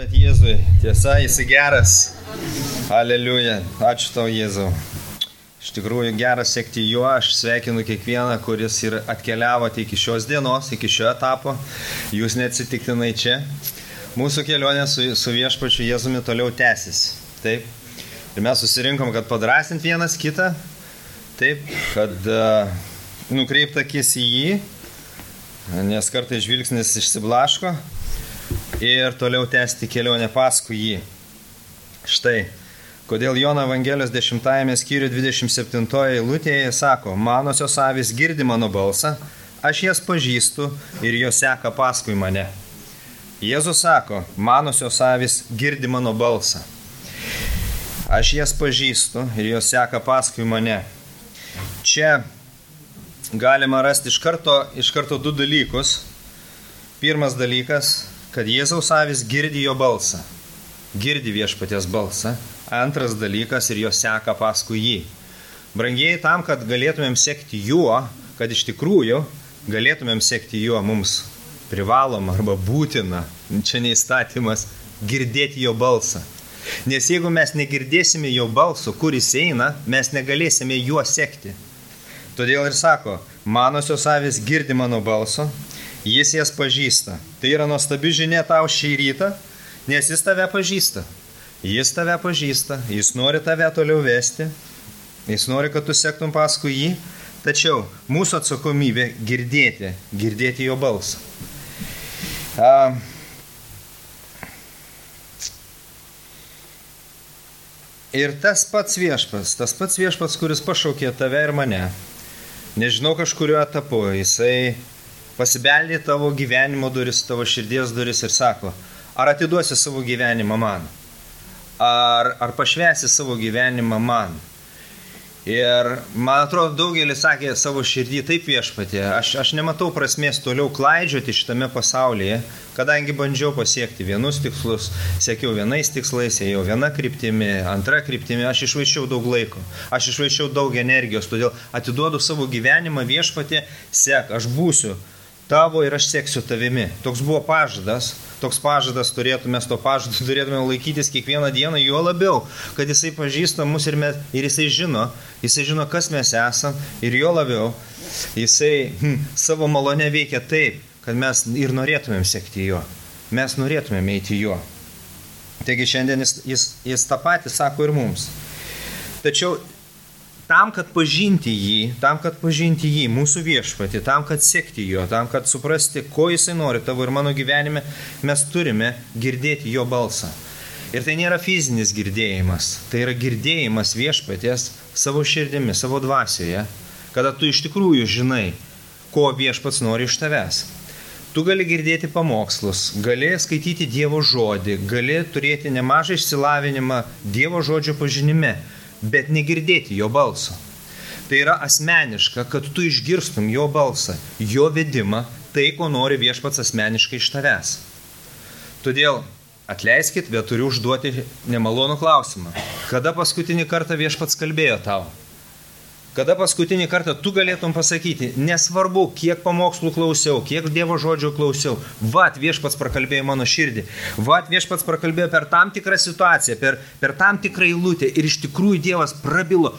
Jėzui, tiesa, jis geras. Aleliuja. Ačiū tau, Jėzau. Iš tikrųjų, geras sekti juo. Aš sveikinu kiekvieną, kuris ir atkeliavote iki šios dienos, iki šio etapo. Jūs neatsitiktinai čia. Mūsų kelionė su viešpačiu Jėzumi toliau tęsis. Taip. Ir mes susirinkom, kad padrasint vienas kitą. Taip, kad nukreipt akis į jį, nes kartais žvilgsnis išsiblaško. Ir toliau tęsti kelionę paskui jį. Štai, kodėl Jono Evangelijos 10 skyriuje 27 eilutėje sako, manosios avys girdi mano balsą, aš jas pažįstu ir jos seka paskui mane. Jėzus sako, manosios avys girdi mano balsą. Aš jas pažįstu ir jos seka paskui mane. Čia galima rasti iš karto du dalykus. Pirmas dalykas, kad Jėzaus avys girdi jo balsą, girdi viešpaties balsą. Antras dalykas, ir jo seka paskui jį. Brangieji, tam, kad galėtumėm sekti juo, kad iš tikrųjų galėtumėm sekti juo, mums privaloma arba būtina, čia neįstatymas, girdėti jo balsą. Nes jeigu mes negirdėsime jo balso, kur jis eina, mes negalėsime juo sekti. Todėl ir sako, manosios avys girdi mano balso, jis jas pažįsta. Tai yra nuostabi žinia tau šį rytą, nes jis tave pažįsta. Jis tave pažįsta, jis nori tave toliau vesti, jis nori, kad tu sektum paskui jį, tačiau mūsų atsakomybė girdėti jo balsą. Ir tas pats viešpats, kuris pašaukė tave ir mane, nežinau kažkurio etapu, jisai pasibeldė tavo gyvenimo duris, tavo širdies duris ir sako, ar atiduosi savo gyvenimą man? Ar pašvęsi savo gyvenimą man? Ir man atrodo, daugelis sakė savo širdį, taip viešpatie, aš nematau prasmės toliau klaidžioti šitame pasaulyje, kadangi bandžiau pasiekti vienus tikslus, siekiau vienais tikslais, ėjau viena kryptimi, antra kryptimi, aš išvaiščiau daug laiko, aš išvaiščiau daug energijos, todėl atiduodu savo gyvenimą viešpatie, sek, aš būsiu tavo ir aš seksiu tavimi. Toks buvo pažadas, turėtume turėtume laikytis kiekvieną dieną, juo labiau, kad jisai pažįsta mus ir jisai žino, kas mes esam, ir juo labiau, jisai savo malonę veikia taip, kad mes ir norėtumėm sekti juo, mes norėtumėm eiti juo. Taigi šiandien jis tą patį sako ir mums. Tačiau tam, kad pažinti jį, mūsų viešpatį, tam, kad sekti jo, tam, kad suprasti, ko jisai nori tavo ir mano gyvenime, mes turime girdėti jo balsą. Ir tai nėra fizinis girdėjimas, tai yra girdėjimas viešpaties savo širdimi, savo dvasioje, kada tu iš tikrųjų žinai, ko viešpats nori iš tavęs. Tu gali girdėti pamokslus, gali skaityti Dievo žodį, gali turėti nemažą išsilavinimą Dievo žodžio pažinime, bet negirdėti jo balso. Tai yra asmeniška, kad tu išgirstum jo balsą, jo vedimą, tai, ko nori viešpats asmeniškai iš tavęs. Todėl atleiskit, bet turiu užduoti nemalonų klausimą. Kada paskutinį kartą viešpats kalbėjo tau? Kada paskutinį kartą tu galėtum pasakyti, nesvarbu, kiek pamokslų klausiau, kiek Dievo žodžio klausiau, viešpats prakalbėjo mano širdį, viešpats prakalbėjo per tam tikrą situaciją, per tam tikrą eilutę ir iš tikrųjų Dievas prabilo,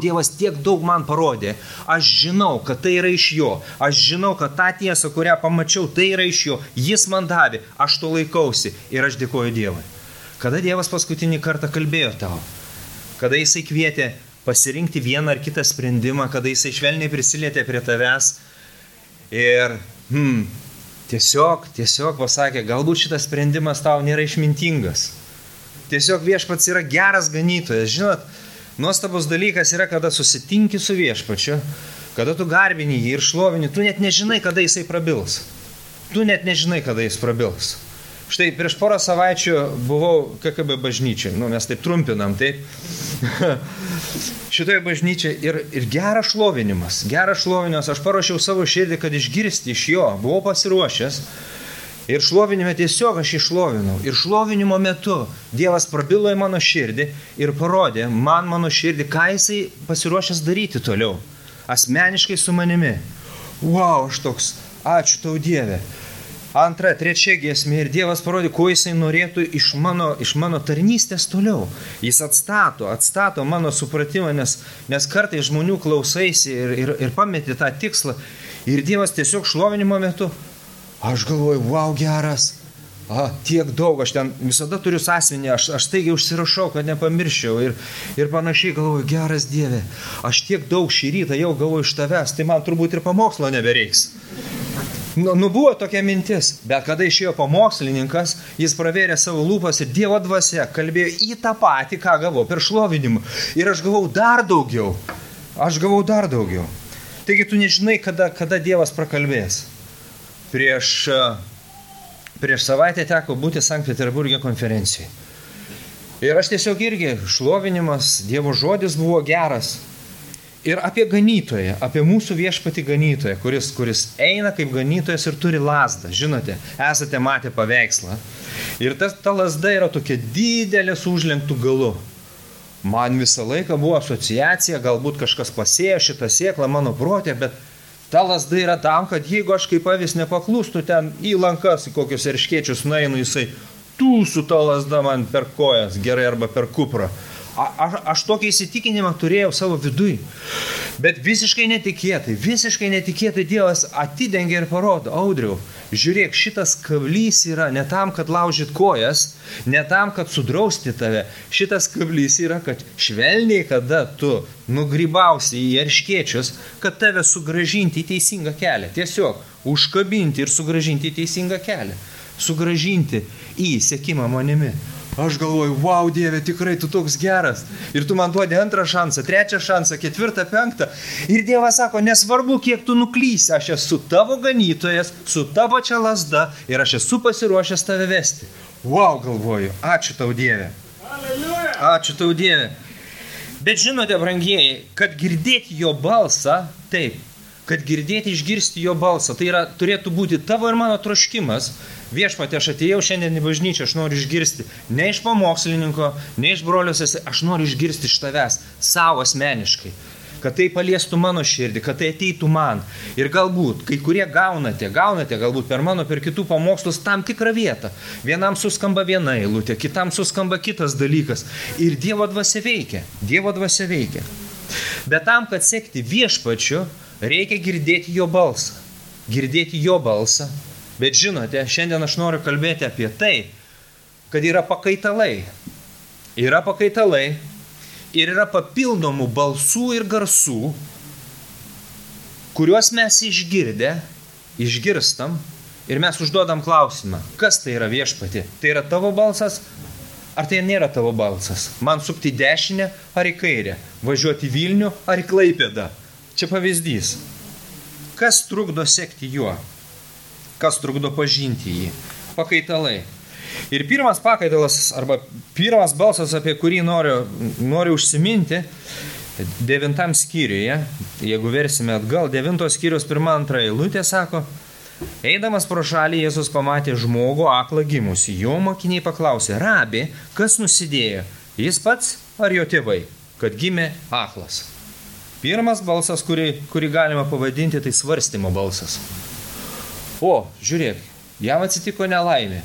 Dievas tiek daug man parodė, aš žinau, kad tai yra iš jo, aš žinau, kad tą tiesą, kurią pamačiau, tai yra iš jo, jis man davė, aš to laikausi ir aš dėkoju Dievui. Kada Dievas paskutinį kartą kalbėjo tau? Kada jisai kvietė pasirinkti vieną ar kitą sprendimą, kada jisai švelniai prisilietė prie tavęs ir tiesiog pasakė, galbūt šitas sprendimas tau nėra išmintingas. Tiesiog viešpats yra geras ganytojas. Žinot, nuostabus dalykas yra, kada susitinki su viešpačiu, kada tu garbini jį ir šlovini, tu net nežinai, kada jisai prabils. Štai prieš porą savaičių buvau KKB bažnyčiai, mes taip trumpinam, taip. Šitoje bažnyčiai ir geras šlovinimas, aš paruošiau savo širdį, kad išgirsti iš jo, buvau pasiruošęs ir šlovinime tiesiog aš išlovinau. Ir šlovinimo metu Dievas prabilo į mano širdį ir parodė man mano širdį, ką jisai pasiruošęs daryti toliau, asmeniškai su manimi. Aš toks, ačiū tau Dieve. antra, trečia giesmė ir Dievas parodė, ko jisai norėtų iš mano tarnystės toliau. Jis atstato mano supratimą, nes kartai žmonių klausaisi ir pameti tą tikslą. Ir Dievas tiesiog šlovinimo metu, aš galvoju, wow, geras, tiek daug, aš ten visada turiu sąsiuvinį, aš taigi užsirašau, kad nepamirščiau ir panašiai galvoju, geras Dieve, aš tiek daug šį rytą jau galvoju iš tavęs, tai man turbūt ir pamokslo nebereiks. Buvo tokia mintis, bet kada išėjo pamokslininkas, jis pravėrė savo lūpas ir Dievo dvasia kalbėjo į tą patį, ką gavau per šlovinimą. Ir aš gavau dar daugiau. Taigi tu nežinai, kada Dievas prakalbės. Prieš savaitę teko būti Sankt Peterburge konferencijai. Ir aš tiesiog irgi šlovinimas, Dievo žodis buvo geras. Ir apie ganytoją, apie mūsų viešpatį ganytoją, kuris eina kaip ganytojas ir turi lazdą. Žinote, esate matę paveikslą. Ir ta lazda yra tokia didelė su užlenktų galu. Man visą laiką buvo asociacija, galbūt kažkas pasėjo šitą sėklą mano protė, bet ta lazda yra tam, kad jeigu aš kaip avis nepaklūstu ten į lankas, į kokius erškėčius nueinu, jisai tūsų ta lazda man per kojas, gerai arba per kuprą. Aš tokį įsitikinimą turėjau savo viduj. Bet visiškai netikėtai Dievas atidengė ir parodo, Audriau, žiūrėk, šitas kablys yra ne tam, kad laužyt kojas, ne tam, kad sudrausti tave. Šitas kablys yra, kad švelniai, kada tu nugrybausi į erškėčius, kad tave sugrąžinti į teisingą kelią. Tiesiog užkabinti ir sugrąžinti į teisingą kelią. Sugrąžinti į sekimą manimi. Aš galvoju, wow, Dieve, tikrai tu toks geras. Ir tu man duodi antrą šansą, trečią šansą, ketvirtą, penktą. Ir Dievas sako, nesvarbu, kiek tu nuklysi, aš esu tavo ganytojas, su tavo čia lazda ir aš esu pasiruošęs tave vesti. Wow, galvoju, ačiū tau, Dieve. Ačiū tau, Dieve. Bet žinote, brangieji, kad girdėti jo balsą, taip, kad girdėti, išgirsti jo balsą, tai yra, turėtų būti tavo ir mano troškimas. Viešpatie, aš atėjau šiandien į bažnyčią, aš noriu išgirsti ne iš pamokslininko, ne iš brolios, aš noriu išgirsti iš tavęs, savo asmeniškai, kad tai paliestų mano širdį, kad tai ateitų man. Ir galbūt, kai kurie gaunate galbūt per mano, per kitų pamokslus tam tikrą vietą. Vienam suskamba viena eilutė, kitam suskamba kitas dalykas. Ir Dievo dvasia veikia. Bet tam, kad sekti viešpačiu, reikia girdėti jo balsą. Bet žinote, šiandien aš noriu kalbėti apie tai, kad yra pakaitalai. Ir yra papildomų balsų ir garsų, kuriuos mes išgirstam ir mes užduodam klausimą, kas tai yra viešpatį? Tai yra tavo balsas, ar tai nėra tavo balsas? Man sukti dešinę ar į kairę? Važiuoti į Vilnių ar į Klaipėdą? Čia pavyzdys. Kas trukdo sekti juo? Kas trukdo pažinti jį? Pakaitalai. Ir pirmas pakaitalas, arba pirmas balsas, apie kurį noriu užsiminti, 9 skyriuje, jeigu versime atgal, 9 skyrius 1-2 eilutė sako, eidamas pro šalį Jėzus pamatė žmogų aklą gimusį. Jo mokiniai paklausė, Rabi, kas nusidėjo? Jis pats ar jo tėvai, kad gimė aklas? Pirmas balsas, kurį galima pavadinti, tai svarstymo balsas. O, žiūrėk, jam atsitiko nelaimė.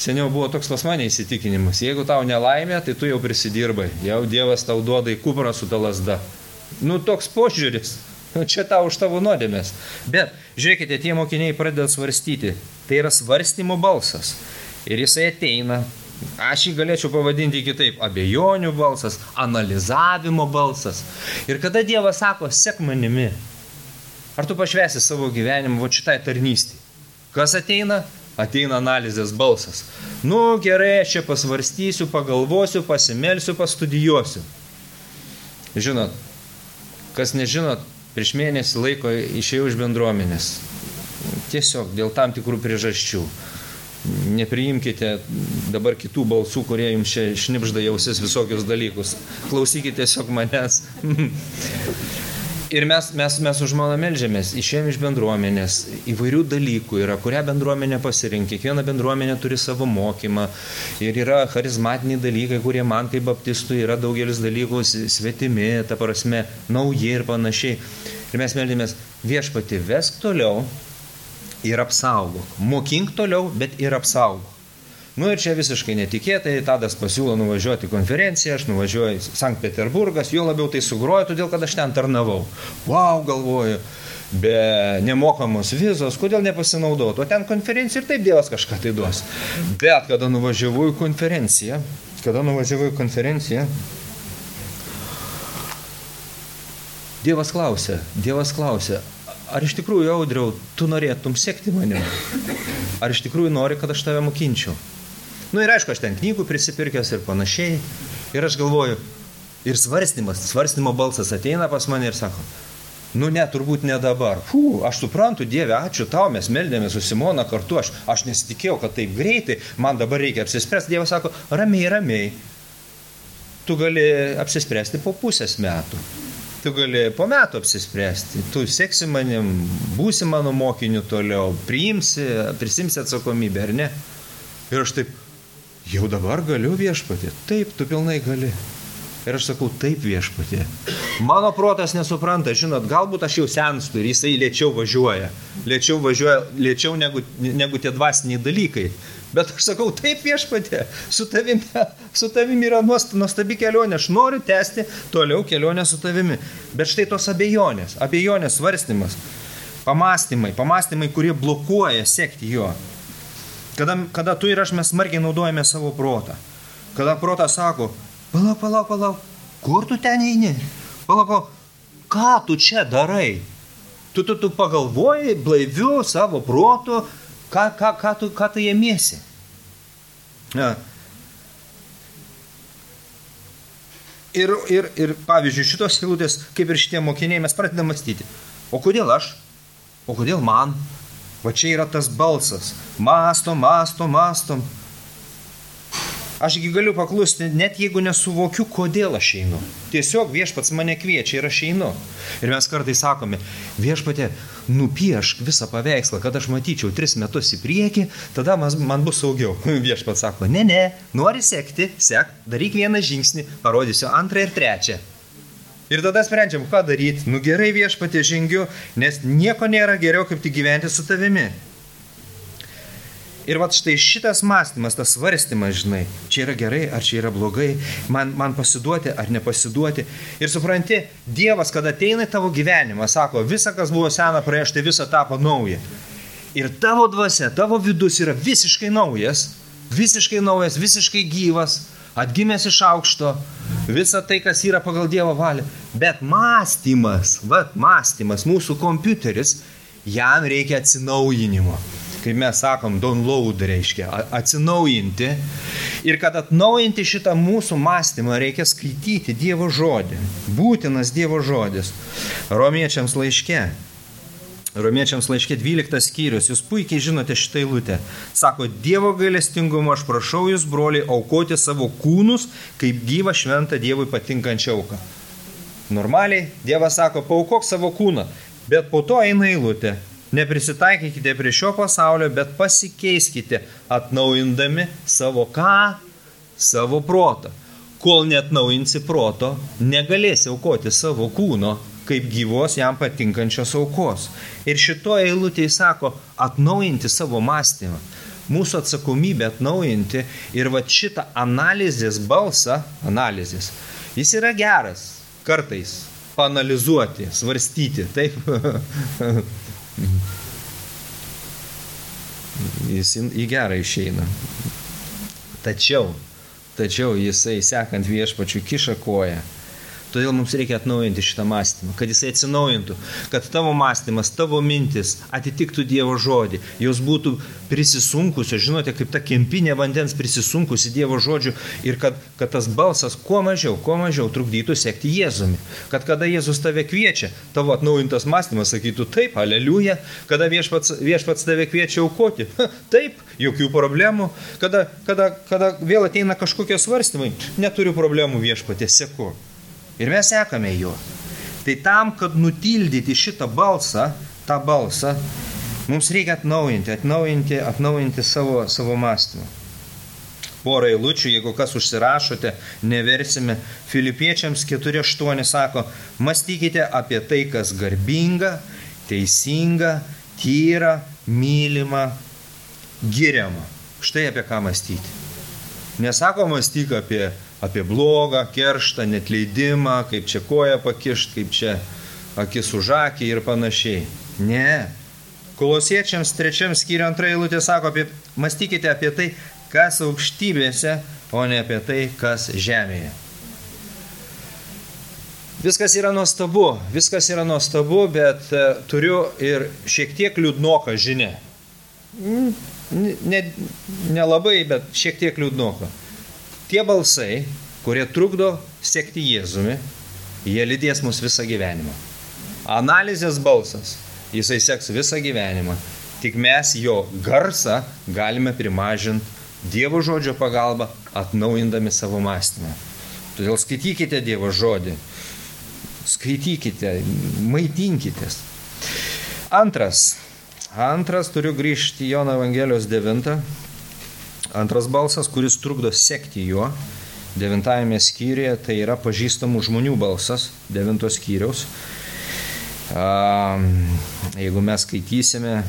Seniau buvo toks pas mane įsitikinimas. Jeigu tau nelaimė, tai tu jau prisidirbai. Jau Dievas tau duoda į kuprą su ta lazda. Toks požiūris. Čia tau už tavo nuodėmės. Bet, žiūrėkite, tie mokiniai pradeda svarstyti. Tai yra svarstymo balsas. Ir jisai ateina. Aš jį galėčiau pavadinti kitaip. Abejonių balsas, analizavimo balsas. Ir kada Dievas sako, sek manimi, ar tu pašvęsi savo gyvenimą šitai tarnystei? Kas ateina? Ateina analizės balsas. Gerai, aš čia pasvarstysiu, pagalvosiu, pasimelsiu, pastudijuosiu. Žinot, kas nežinot, prieš mėnesį laiko išėjau iš bendruomenės. Tiesiog dėl tam tikrų priežasčių. Nepriimkite dabar kitų balsų, kurie jums čia šnipžda jausis visokius dalykus. Klausykite tiesiog manęs. Ir mes už malą meldžiamės, išėjom iš bendruomenės, įvairių dalykų yra, kurią bendruomenę pasirinkti. Kiekviena bendruomenė turi savo mokymą ir yra charizmatiniai dalykai, kurie man kaip baptistui yra daugelis dalykų svetimi, ta prasme, nauji ir panašiai. Ir mes meldėmės, viešpatį, vesk toliau, ir apsaugok. Mokink toliau, bet ir apsaugok. Nu ir čia visiškai netikėtai, Tadas pasiūlo nuvažiuoti konferenciją, aš nuvažiuoju į Sankt Peterburgas, jo labiau tai sugrojo, todėl kad aš ten tarnavau. Vau, galvoju, be nemokamos vizos, kodėl nepasinaudoti, o ten konferencija ir taip Dievas kažką tai duos. Bet kada nuvažiavau į konferenciją, Dievas klausė, ar iš tikrųjų, Audriau, tu norėtum sekti manim? Ar iš tikrųjų nori, kad aš tave mokinčiau? Nu ir aišku, aš ten knygų prisipirkęs ir panašiai. Ir aš galvoju, ir svarstymo balsas ateina pas mane ir sako, nu ne, turbūt ne dabar. Aš suprantu, Dieve, ačiū tau, mes meldėmės su Simona kartu, aš nesitikėjau, kad taip greitai, man dabar reikia apsispręsti. Dievas sako, ramiai, tu gali apsispręsti po pusės metų. Tu gali po metų apsispręsti, tu seksi manim, būsi mano mokiniu toliau, prisimsi atsakomybę, ar ne? Ir aš taip, jau dabar galiu Viešpatie? Taip, tu pilnai gali. Ir aš sakau, taip Viešpatie. Mano protas nesupranta, žinot, galbūt aš jau senstu ir jisai lėčiau važiuoja negu tie dvasiniai dalykai. Bet aš sakau, taip Viešpatie, su tavimi yra nuostabi kelionė, aš noriu tęsti toliau kelionę su tavimi. Bet štai tos abejonės svarstymas, pamastymai, kurie blokuoja sekti jo. Kada tu ir aš mes smarkiai naudojame savo protą. Kada protas sako, palauk, kur tu ten eini? Palauk, ką tu čia darai? Tu pagalvoji blaiviu savo protu, ką tu ėmiesi? Ir pavyzdžiui, šitos eilutės, kaip ir šitie mokiniai, mes pradedame mąstyti. O kodėl aš? O kodėl man? Va čia yra tas balsas. Mąstom. Ašgi galiu paklusti, net jeigu nesuvokiu, kodėl aš einu. Tiesiog Viešpats mane kviečia ir aš einu. Ir mes kartais sakome, Viešpatie, nupiešk visą paveikslą, kad aš matyčiau 3 metus į priekį, tada man bus saugiau. Viešpats sako, ne, nori sekti, daryk vieną žingsnį, parodysiu 2 ir 3. Ir tada sprendžiam, ką daryti. Nu gerai, Viešpatie, žengiu, nes nieko nėra geriau, kaip tik gyventi su tavimi. Ir vat štai šitas mąstymas, tas svarstymas, žinai, čia yra gerai, ar čia yra blogai, man pasiduoti ar nepasiduoti. Ir supranti, Dievas, kada ateina į tavo gyvenimą, sako, visa, kas buvo sena praėjo, štai visa tapo nauja. Ir tavo dvasia, tavo vidus yra visiškai naujas, visiškai gyvas, atgimęs iš aukšto, visa tai, kas yra pagal Dievo valią. Bet mąstymas, mūsų kompiuteris, jam reikia atsinaujinimo. Kaip mes sakom, download reiškia, atsinaujinti. Ir kad atnaujinti šitą mūsų mąstymą, reikia skaityti Dievo žodį. Būtinas Dievo žodis. Romiečiams laiške 12 skyrius, jūs puikiai žinote šitą eilutę. Sako, Dievo gailestingumo aš prašau jūs, broliai, aukoti savo kūnus, kaip gyvą šventą Dievui patinkančią auką. Normaliai, Dievas sako, paaukok savo kūną, bet po to eina eilutė. Neprisitaikykite prie šio pasaulio, bet pasikeiskite, atnaujindami savo ką? Savo protą. Kol neatnaujinsi proto, negalėsi aukoti savo kūno, kaip gyvos jam patinkančios aukos. Ir šito eilutėje sako, atnaujinti savo mąstymą. Mūsų atsakomybė atnaujinti ir va šitą analizės, jis yra geras, kartais, paanalizuoti, svarstyti, taip. Jis į gerą išeina. Tačiau jisai, sekant Viešpačiu, kiša koją. Todėl mums reikia atnaujinti šitą mąstymą, kad jisai atsinaujintų, kad tavo mąstymas, tavo mintis atitiktų Dievo žodį, jos būtų prisisunkusios, žinote, kaip ta kempinė vandens prisisunkusi Dievo žodžiu ir kad tas balsas kuo mažiau trukdytų sekti Jėzumi. Kad kada Jėzus tave kviečia, tavo atnaujintas mąstymas sakytų taip, aleliuja, kada viešpats tave kviečia aukoti, taip, jokių problemų, kada vėl ateina kažkokie svarstymai, neturiu problemų Viešpatie, seku. Ir mes sekame juo. Tai tam, kad nutildyti šitą balsą, mums reikia atnaujinti savo mąstymą. Porą eilučių, jeigu kas užsirašote, neversime. Filipiečiams 4:8 sako, mąstykite apie tai, kas garbinga, teisinga, tyra, mylimą, giriamą. Štai apie ką mąstyti. Nesako mąstyk apie blogą, kerštą, netleidimą, kaip čia koją pakišt, kaip čia akis už akį ir panašiai. Ne. Kolosiečiams 3 skyriuje 2 eilutė sako, mąstykite apie tai, kas aukštybėse, o ne apie tai, kas žemėje. Viskas yra nuostabu, bet turiu ir šiek tiek liūdnoką žinią. Nelabai, bet šiek tiek liūdnoką. Tie balsai, kurie trukdo sekti Jėzumi, jie lydės mus visą gyvenimą. Analizės balsas, jisai seks visą gyvenimą. Tik mes jo garsą galime primažinti Dievo žodžio pagalba, atnaujindami savo mąstymą. Todėl skaitykite Dievo žodį. Skaitykite, maitinkitės. Antras turiu grįžti į Jono Evangelijos 9. Antras balsas, kuris trukdo sekti juo. 9 skyriuje tai yra pažįstamų žmonių balsas, 9 skyriaus. Jeigu mes skaitysime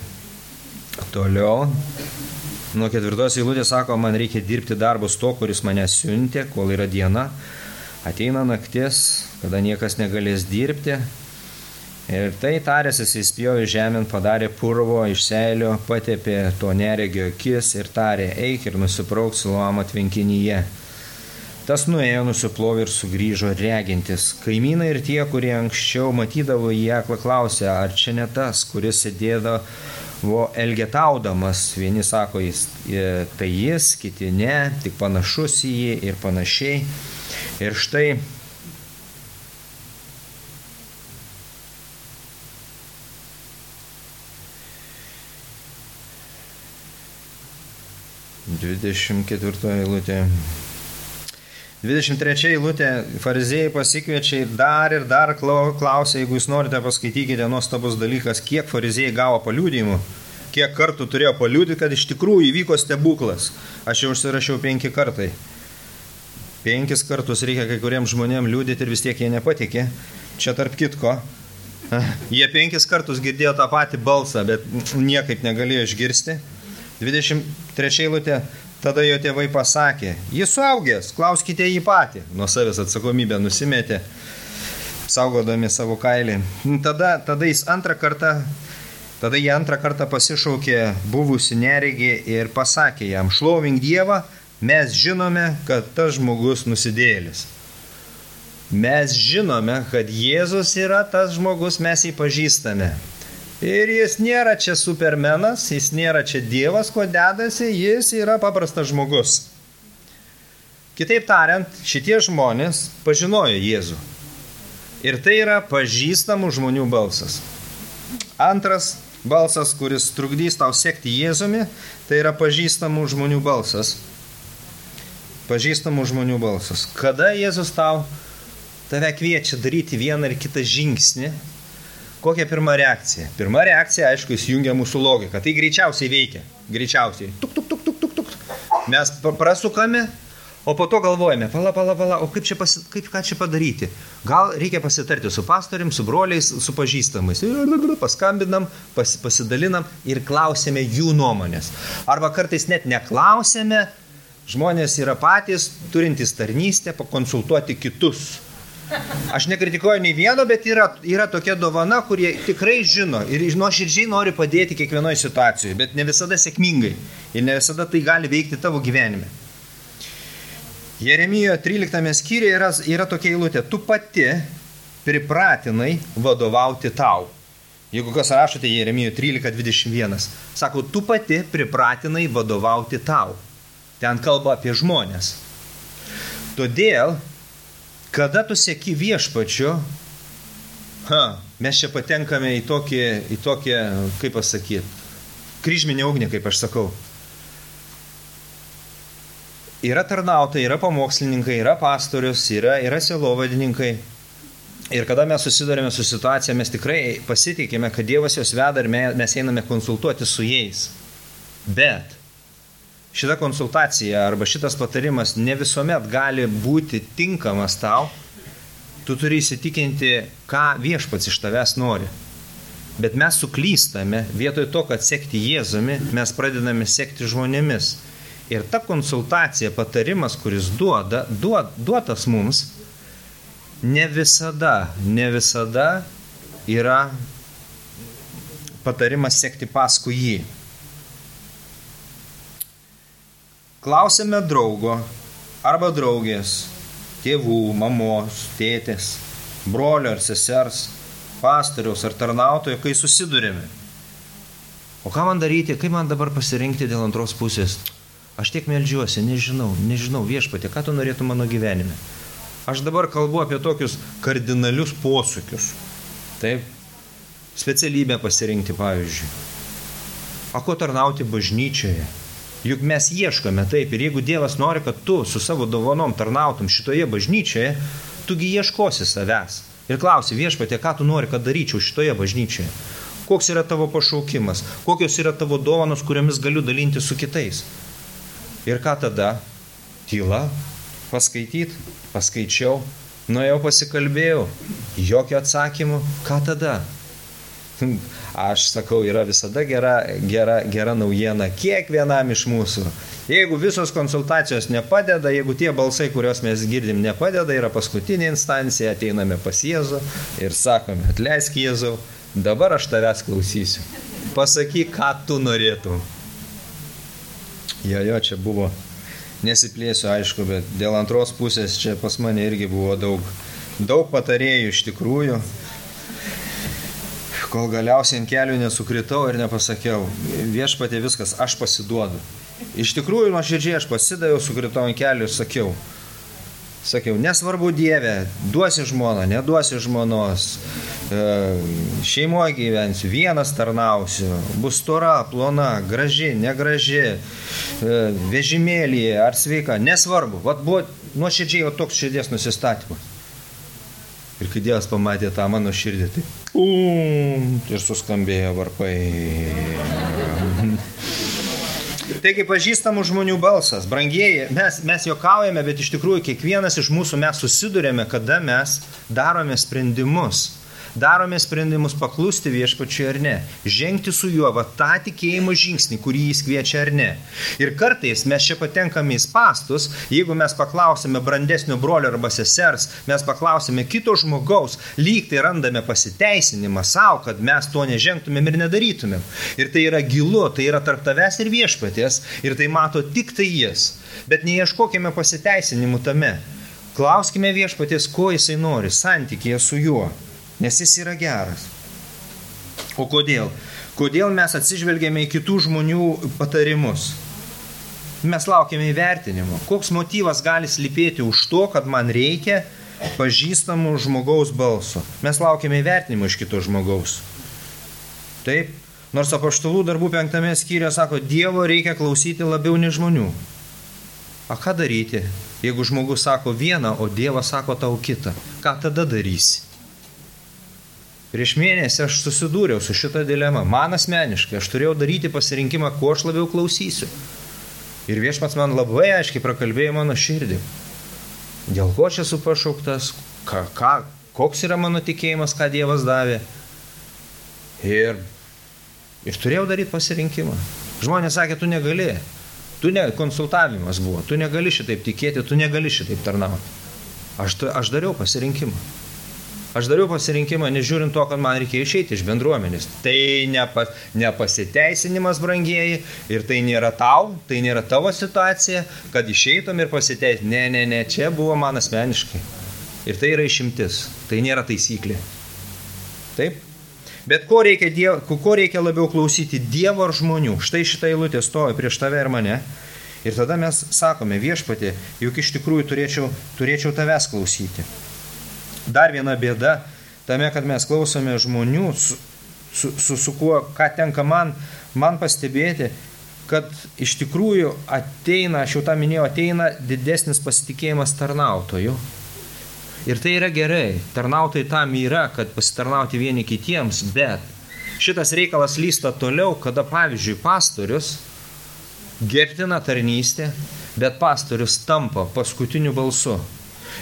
toliau, nuo 4 eilutės sako, man reikia dirbti darbus to, kuris mane siuntė, kol yra diena. Ateina naktis, kada niekas negalės dirbti. Ir tai tarėsis, jis spjovė žemėn, padarė purvo iš seilio, patepė to neregio akis ir tarė, eik ir nusiprauk Siloamo tvenkinyje. Tas nuėjo, nusiplovė ir sugrįžo regintis. Kaimynai ir tie, kurie anksčiau matydavo jį aklą, klausė, ar čia ne tas, kuris sėdėdavo elgetaudamas. Vieni sako, tai jis, kiti ne, tik panašus į jį ir panašiai. Ir štai Dvidešimt 4 eilutė. 23 eilutė, fariziejai pasikviečia ir dar klausia, jeigu jūs norite, paskaitykite, nuostabus dalykas, kiek fariziejai gavo paliudijimų, kiek kartų turėjo paliudyti, kad iš tikrųjų įvyko stebuklas. Aš jau užsirašiau 5 kartai. 5 kartus reikia kai kuriems žmonėms liūdėti ir vis tiek jie nepatikė. Čia tarp kitko, jie 5 kartus girdėjo tą patį balsą, bet niekaip negalėjo išgirsti. 23 eilutė, tada jo tėvai pasakė, jis suaugęs, klauskite jį patį. Nuo savęs atsakomybę nusimetė, saugodami savo kailį. Tada jie antrą kartą pasišaukė buvusi neregį ir pasakė jam, šlovink Dievą, mes žinome, kad tas žmogus nusidėjėlis. Mes žinome, kad Jėzus yra tas žmogus, mes jį pažįstame. Ir jis nėra čia supermenas, jis nėra čia Dievas, kuo dedasi, jis yra paprastas žmogus. Kitaip tariant, šitie žmonės pažinojo Jėzų. Ir tai yra pažįstamų žmonių balsas. Antras balsas, kuris trukdys tau sekti Jėzumi, tai yra pažįstamų žmonių balsas. Pažįstamų žmonių balsas. Kada Jėzus tave kviečia daryti vieną ar kitą žingsnį, kokia pirma reakcija? Pirma reakcija, aišku, įsijungia mūsų logika. Tai greičiausiai veikia. Greičiausiai. Tuk. Mes prasukame, o po to galvojame, pala, o ką čia padaryti? Gal reikia pasitarti su pastorium, su broliais, su pažįstamais. Paskambinam, pasidalinam ir klausėme jų nuomonės. Arba kartais net neklausėme, žmonės yra patys, turintys tarnystę, pakonsultuoti kitus. Aš nekritikuoju nei vieno, bet yra tokia dovana, kurie tikrai žino ir nuoširdžiai nori padėti kiekvienoje situacijoje, bet ne visada sėkmingai ir ne visada tai gali veikti tavo gyvenime. Jeremijo 13 skyriuje yra tokia eilutė, tu pati pripratinai vadovauti tau. Jeigu kas rašote Jeremijo 13:21, sako, tu pati pripratinai vadovauti tau. Ten kalba apie žmonės. Todėl, kada tu seki viešpačiu, mes čia patenkame į tokį, kaip pasakyti, kryžminę ugnį, kaip aš sakau. Yra tarnautojai, yra pamokslininkai, yra pastorius, yra sielovadininkai. Ir kada mes susidurėme su situacija, mes tikrai pasitikime, kad Dievas juos veda ir mes einame konsultuoti su jais. Bet šita konsultacija arba šitas patarimas ne visuomet gali būti tinkamas tau. Tu turi įsitikinti, ką viešpats iš tavęs nori. Bet mes suklystame, vietoj to, kad sekti Jėzumi, mes pradedame sekti žmonėmis. Ir ta konsultacija, patarimas, kuris duotas mums, ne visada yra patarimas sekti paskui jį. Klausėme draugo arba draugės, tėvų, mamos, tėtės, brolio ar sesers, pastoriaus ar tarnautojo, kai susidurėme. O ką man daryti, kaip man dabar pasirinkti dėl antros pusės? Aš tiek meldžiuosi, nežinau, Viešpatie, ką tu norėtum mano gyvenime. Aš dabar kalbu apie tokius kardinalius posūkius. Taip, specialybę pasirinkti, pavyzdžiui. O ko tarnauti bažnyčioje? Juk mes ieškome taip, ir jeigu Dievas nori, kad tu su savo dovanom tarnautum šitoje bažnyčioje, tugi ieškosi savęs. Ir klausi, Viešpatie, ką tu nori, kad daryčiau šitoje bažnyčioje? Koks yra tavo pašaukimas? Kokios yra tavo dovanos, kuriomis galiu dalinti su kitais? Ir ką tada? Tyla. Paskaičiau, nuėjau pasikalbėjau. Jokio atsakymo. Ką tada? Aš sakau, yra visada gera naujiena kiekvienam iš mūsų. Jeigu visos konsultacijos nepadeda, jeigu tie balsai, kuriuos mes girdim, nepadeda, yra paskutinė instancija, ateiname pas Jėzų ir sakome, atleisk Jėzau, dabar aš tavęs klausysiu. Pasakyk, ką tu norėtum. Jo, čia buvo, nesiplėsiu, aišku, bet dėl antros pusės čia pas mane irgi buvo daug patarėjų iš tikrųjų. Kol galiausiai ant kelių nesukritau ir nepasakiau, Viešpatie viskas, aš pasiduodu. Iš tikrųjų, nuoširdžiai aš pasidaviau, sukritau ant kelių ir sakiau, nesvarbu Dieve, duosi žmoną, neduosi žmonos, šeimoje gyvensiu, vienas tarnausiu, bus stora, plona, graži, negraži, vežimėlyje ar sveika, nesvarbu. Vat buvo nuoširdžiai toks širdies nusistatymas. Ir kai Dievas pamatė tą mano širdį, tai ir suskambėjo varpai. Taigi pažįstamų žmonių balsas, brangieji, mes juokaujame, bet iš tikrųjų kiekvienas iš mūsų mes susidurėme, kada mes darome sprendimus. Darome sprendimus paklusti Viešpačiui ar ne. Žengti su juo tą tikėjimo žingsnį, kurį jis kviečia ar ne. Ir kartais mes čia patenkame į spastus, jeigu mes paklausime brandesnio brolio arba sesers, mes paklausime kito žmogaus, lyg tai randame pasiteisinimą savo, kad mes to nežengtumėm ir nedarytumėm. Ir tai yra gilu, tai yra tarp tavęs ir Viešpaties, ir tai mato tik tai jis. Bet neieškokime pasiteisinimų tame. Klauskime Viešpaties, ko jisai nori, santykyje su juo. Nes jis yra geras. O kodėl? Kodėl mes atsižvelgėme į kitų žmonių patarimus? Mes laukiame įvertinimo. Koks motyvas gali slypėti už to, kad man reikia pažįstamų žmogaus balso? Mes laukiame įvertinimo iš kito žmogaus. Taip, nors Apaštalų darbų 5 skyriuje sako, Dievo reikia klausyti labiau nei žmonių. A ką daryti, jeigu žmogus sako vieną, o Dievas sako tau kitą? Ką tada darysi? Prieš mėnesį aš susidūriau su šitą dilemą. Man asmeniškai, aš turėjau daryti pasirinkimą, ko aš labiau klausysiu. Ir Viešpats man labai aiškiai prakalbėjo mano širdį. Dėl ko aš esu pašauktas, koks yra mano tikėjimas, ką Dievas davė. Ir turėjau daryti pasirinkimą. Žmonės sakė, tu negali. Konsultavimas buvo. Tu negali šitaip tikėti, tu negali šitaip tarnauti. Aš dariau pasirinkimą. Aš dariau pasirinkimą, nežiūrint to, kad man reikėjo išeiti iš bendruomenės. Tai nepasiteisinimas, brangieji, ir tai nėra tavo situacija, kad išeitum ir pasiteisinti. Ne, čia buvo man asmeniškai. Ir tai yra išimtis, tai nėra taisyklė. Taip? Bet ko reikia labiau klausyti, Dievo ar žmonių? Štai šitą eilutę stovi prieš tave ir mane. Ir tada mes sakome, Viešpatie, juk iš tikrųjų turėčiau tavęs klausyti. Dar viena bėda tame, kad mes klausome žmonių, su kuo, ką tenka man pastebėti, kad iš tikrųjų ateina, aš jau tą minėjau, ateina didesnis pasitikėjimas tarnautojų. Ir tai yra gerai, tarnautojai tam yra, kad pasitarnauti vieni kitiems, bet šitas reikalas lysta toliau, kada, pavyzdžiui, pastorius gerbtina tarnystė, bet pastorius tampa paskutiniu balsu.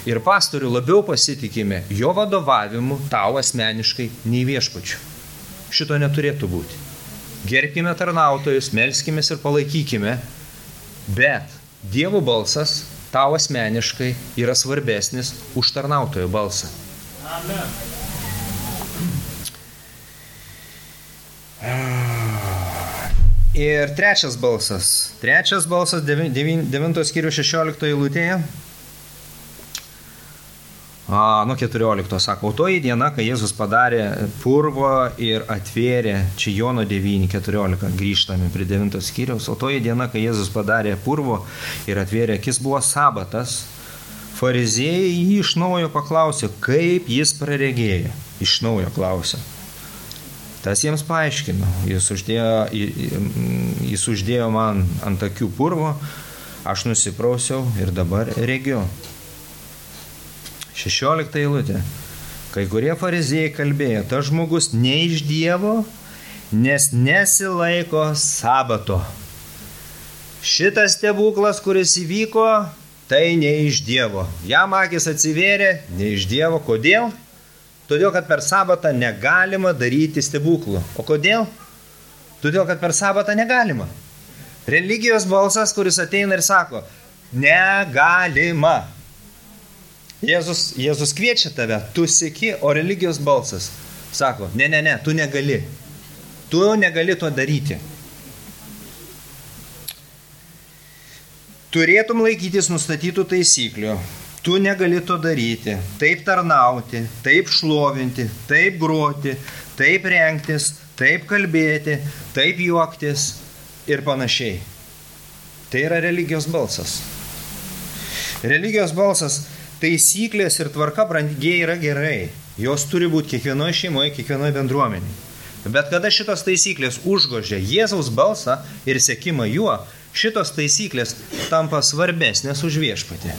Ir pastorių labiau pasitikime jo vadovavimu tau asmeniškai nei Viešpačiu. Šito neturėtų būti. Gerbkime tarnautojus, melskimės ir palaikykime, bet Dievo balsas tau asmeniškai yra svarbesnis už tarnautojo balsą. Amen. Ir trečias balsas 9 skyrių 16 eilutėje, nuo 14 sako, o toji diena, kai Jėzus padarė purvo ir atvėrė, čia Jono 9:14, grįžtame prie 9 skyriaus, o toji diena, kai Jėzus padarė purvo ir atvėrė akis, buvo sabatas, fariziejai jį iš naujo paklausė, kaip jis praregėjo, iš naujo klausė. Tas jiems paaiškino, jis uždėjo man ant akių purvo, aš nusiprausiau ir dabar regiu. 16 eilutė. Kai kurie fariziejai kalbėjo, tas žmogus ne iš Dievo, nes nesilaiko sabato. Šitas stebuklas, kuris įvyko, tai ne iš Dievo. Jam akis atsivėrė, ne iš Dievo. Kodėl? Todėl, kad per sabatą negalima daryti stebuklų. O kodėl? Todėl, kad per sabatą negalima. Religijos balsas, kuris ateina ir sako, negalima. Jėzus kviečia tave, tu seki, o religijos balsas sako, ne, tu negali. Tu negali to daryti. Turėtum laikytis nustatytų taisyklių. Tu negali to daryti, taip tarnauti, taip šlovinti, taip groti, taip rengtis, taip kalbėti, taip juoktis ir panašiai. Tai yra religijos balsas. Religijos balsas, taisyklės ir tvarka brangiai yra gerai. Jos turi būti kiekvienoje šeimoje, kiekvienoje bendruomenėje. Bet kada šitos taisyklės užgožia Jėzaus balsą ir sekimą juo, šitos taisyklės tampa svarbesnės už viešpatį.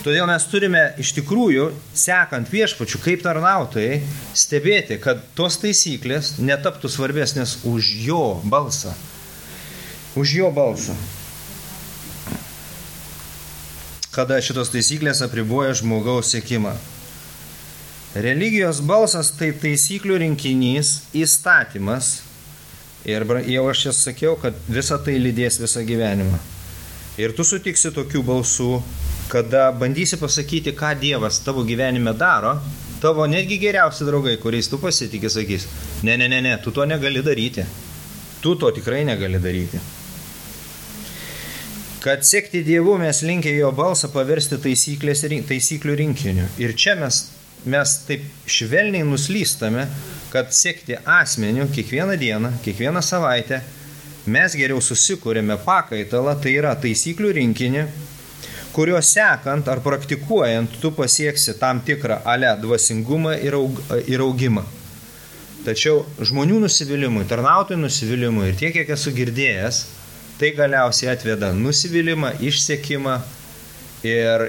Todėl mes turime iš tikrųjų, sekant viešpačiu kaip tarnautojai, stebėti, kad tos taisyklės netaptų svarbesnės už jo balsą. Už jo balsą. Kada šitos taisyklės apriboja žmogaus sekimą. Religijos balsas tai taisyklių rinkinys, įstatymas. Ir jau aš čia sakiau, kad visa tai lydės visą gyvenimą. Ir tu sutiksi tokių balsų, kada bandysi pasakyti, ką Dievas tavo gyvenime daro, tavo netgi geriausi draugai, kuriais tu pasitikė, sakys, ne, tu to negali daryti. Tu to tikrai negali daryti. Kad sekti Dievu mes linkę jo balsą paversti taisyklių rinkiniu. Ir čia mes taip švelniai nuslystame, kad sekti asmeniu kiekvieną dieną, kiekvieną savaitę, mes geriau susikūrėme pakaitalą, tai yra taisyklių rinkinį, kurio sekant ar praktikuojant tu pasieksi tam tikrą dvasingumą ir augimą. Tačiau žmonių nusivylimui, tarnautojų nusivylimui ir tiek, kiek esu girdėjęs, tai galiausiai atveda nusivylimą, išsekimą ir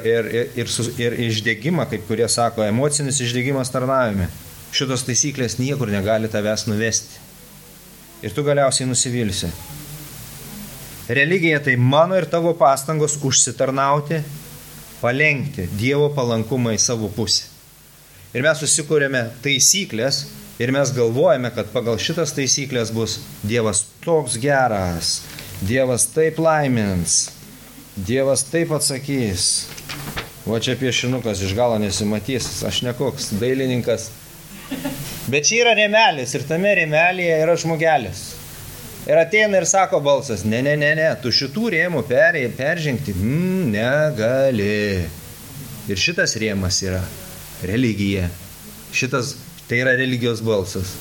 išdegimą, kaip kurie sako, emocinis išdegimas tarnavime. Šitos taisyklės niekur negali tavęs nuvesti. Ir tu galiausiai nusivilsi. Religija tai mano ir tavo pastangos užsitarnauti, palenkti Dievo palankumą į savo pusę. Ir mes susikūrėme taisyklės ir mes galvojame, kad pagal šitas taisyklės bus Dievas toks geras, Dievas taip laimins, Dievas taip atsakys. O čia piešinukas iš galo nesimatys, aš ne koks dailininkas. Bet čia yra rėmelis ir tame rėmelėje yra žmogelis. Ir ateina ir sako balsas, ne, tu šitų rėmų peržengti negali. Ir šitas rėmas yra religija. Šitas, tai yra religijos balsas.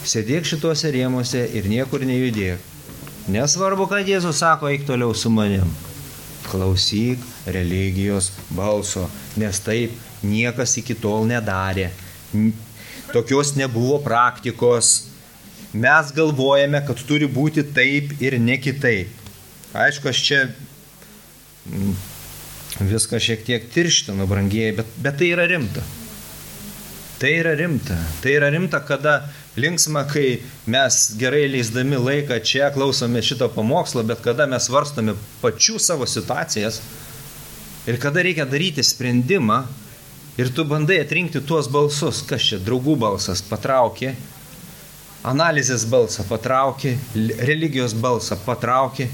Sėdėk šituose rėmuose ir niekur nejudėk. Nesvarbu, kad Jėzus sako, eik toliau su manim. Klausyk religijos balso, nes taip niekas iki tol nedarė. Tokios nebuvo praktikos. Mes galvojame, kad turi būti taip ir ne kitaip. Aišku, aš čia viską šiek tiek tirštinu, brangieji, bet tai yra rimta. Tai yra rimta. Tai yra rimta, kada linksma, kai mes gerai leisdami laiką čia klausome šito pamokslo, bet kada mes svarstome pačių savo situacijas ir kada reikia daryti sprendimą ir tu bandai atrinkti tuos balsus, kas čia draugų balsas patraukė, analizės balsą patrauki, religijos balsą patrauki